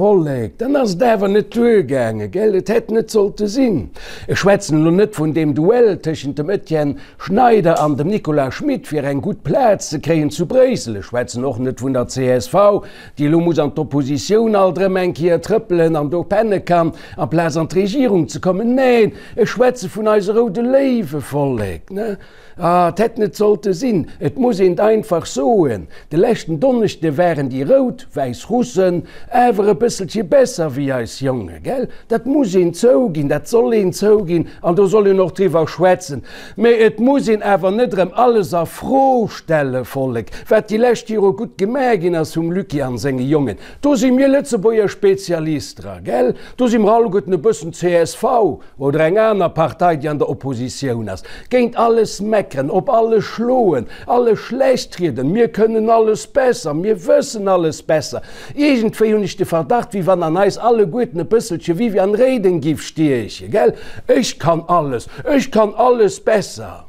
Vollek, dann ass et awer net duergaangen, gell? Et hätt net sollte sinn. Ech schwätzen elo net vun deem Duell tëschent dem Etienne Schneider an dem Nicolas Schmit fir eng gutt Plaz ze kréien zu Bréissel. Ech schwätzen och net vun der csv, déi elo muss an d'Oppositioun alt erëm eng Kéier trëppelen an do penne kann, amplaz an d'Regierung ze kommen. Neen, ech schwätze vun eise roude Léiwe, Vollek, ne? Ah, et hätt net sollte sinn, et muss een et einfach soen, de leschten Donneschde waren déi rout wäiss Russen awer e bësselche besser wéi eis Jonge, gell? Dat muss een zouginn, dat soll een zouginn an do soll een och driwwer schwätzen. Mä et muss een awer net erëm alles a Fro stelle, Vollek, wat déi lescht Jore gutt gemaach ginn ass vum Lucky an senge Jongen. Do si mir Lëtzebuerger Spezialist dra, gell? Do si mer alleguerten e bëssen csv. Oder eng aner Partei, déi an der Oppositioun ass, géint alles meckeren, op alles schloen, alles schlecht rieden, mir kënnen alles besser, mir wëssen alles besser. Iergendwéi hunn ech de Verdacht, wéi wann an eis alleguerten e bësselche Viviane Reding giff stiechen, gell? Ech kann alles, ech kann alles besser.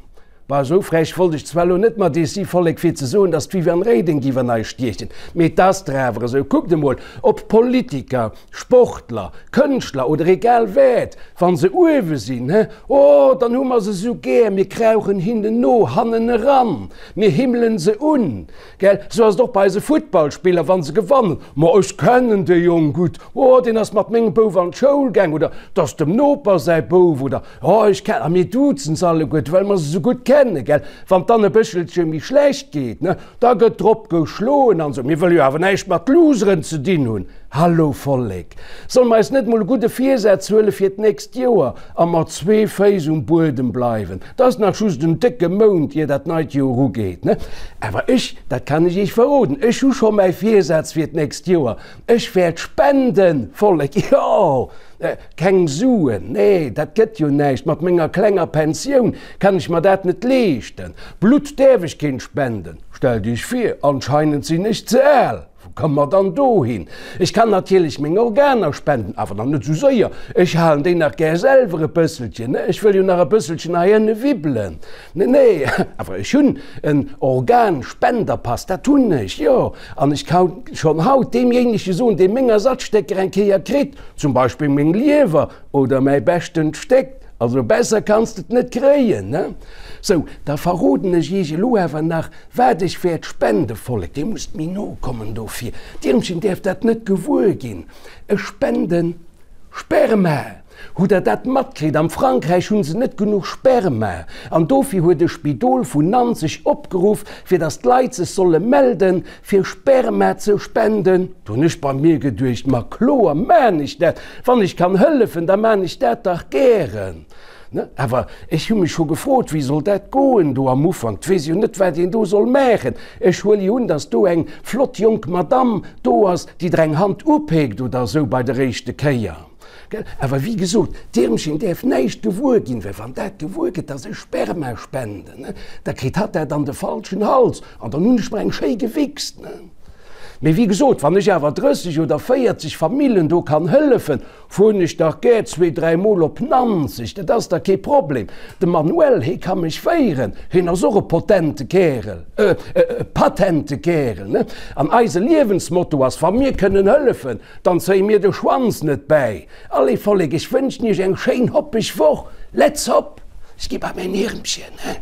Bah, esou frech wollt ech zwar elo net mat iech si, Vollek, fir ze soen, datt d'Viviane Reding giff an eis stiechen, mee 't ass der awer esou. Kuckt emol, ob Politiker, Sportler, Kënschtler oder egal wat, wa se uewe sinn, he, oh, dann hu mer se esou gär, mir krauchen hinnen no, hannen eran, mir himmelen se un, gell. Esou ass et och bei eise Futtballspiller, wa se gewannen, ma ech kennen dee Jong gutt, oh, deen ass mat mengem Bouf an d'Schoul gaang oder 't ass dem Noper säi Bouf oder Oh, ech ken, a mir duzen se alleguerte, well mer se esou gutt kennen, gell. Wann et dann e bëschelche méi schlecht geet, ne, da gëtt drop geschloen an esou. Mir wëlle jo awer näischt mat Loseren ze dinn hunn. Hallo Vollek, solle mer eis net mol e gudde Virsaz huele fir d'nächst Joer a mat zwee Féiss um Buedem bleiwen? 't ass nach just en décke Mount, ier dat neit Joer ugeet, ne. Awer ech, dat kann ech iech verroden, ech hu scho mäi Virsaz fir d'nächst Joer, Ech wäert spenden, Vollek, jo! Keng Suen, nee, dat gëtt jo näischt, mat menger klenger Pensioun kann ech mer dat net leeschten. Blutt däerf ech keent spenden, stellt iech vir, anscheinend sinn ech ze al, wou komme mer dann dohin? Ech kann natierlech meng Organer spenden, awer dann net esou séier, ech halen déi nach gär selwer e bësselchen, ne, ech wëll jo nach e bësselchen hei ënne wibbelen. Nee, nee, awer ech hunn en Organspenderpass, dat hunn ech, jo, an ech kann schonn haut deemjéinege soen, dee meng Ersatzstécker eng Kéier kritt, zum Beispill meng Liewer oder mäi beschtent Stéck, also besser kanns de et net kréien, ne? Sou, da verroden ech iech elo awer nach, wat ech wäert spende, Vollek, dir musst méi no kommen dofir, d'Irmchen däerf dat net gewuer ginn, ech spenden Sperma! Hutt der dat matkritt? Am Frankräich hunn se net genuch Sperma an dofir huet e Spidol vun Nanzeg opgeruff, fir datt d'Leit sech solle melden, fir Sperma ze spenden. Do hunn ech bei mir geduecht, Ma kloer maan ech dat, wann ech kann hëllefen, da maan ech dat dach gären. Ne? Awer ech hu mech scho gefrot, wéi soll dat goen do am Ufank? 't weess jo net, wat een do soll maachen. Ech huele jo un, datt do eng flott jonk Madamm do ass, déi der eng Hand upeekt oder esou bei der éischte Kéier. Gell? Awer wéi gesot, d'Irmchen däerf näischt gewuer ginn, well wann dat gewuer gëtt, dass ech Sperma spenden, ne, da kritt hatt dat an de falschen Hals an dann hunn ech mer eng schéi gewichst, ne. Mee wéi gesot, wann ech awer 30 oder 40 Famillen do kann hëllefen, fueren ech dach gär zwee, dräi Mol op Nanzeg, dat ass dach kee Problem. De Manuel, hee ka mech féieren, hien ass och e potente Kärel, e patente Kärel, ne. An eise Liewensmotto ass, wa mir kënnen hëllefen, Dann zéie mir de Schwanz net bäi. Allez Vollek, ech wënschen iech eng schéin hoppeg Woch. Let's hop! Ech gi bei mäin Iermchen, he.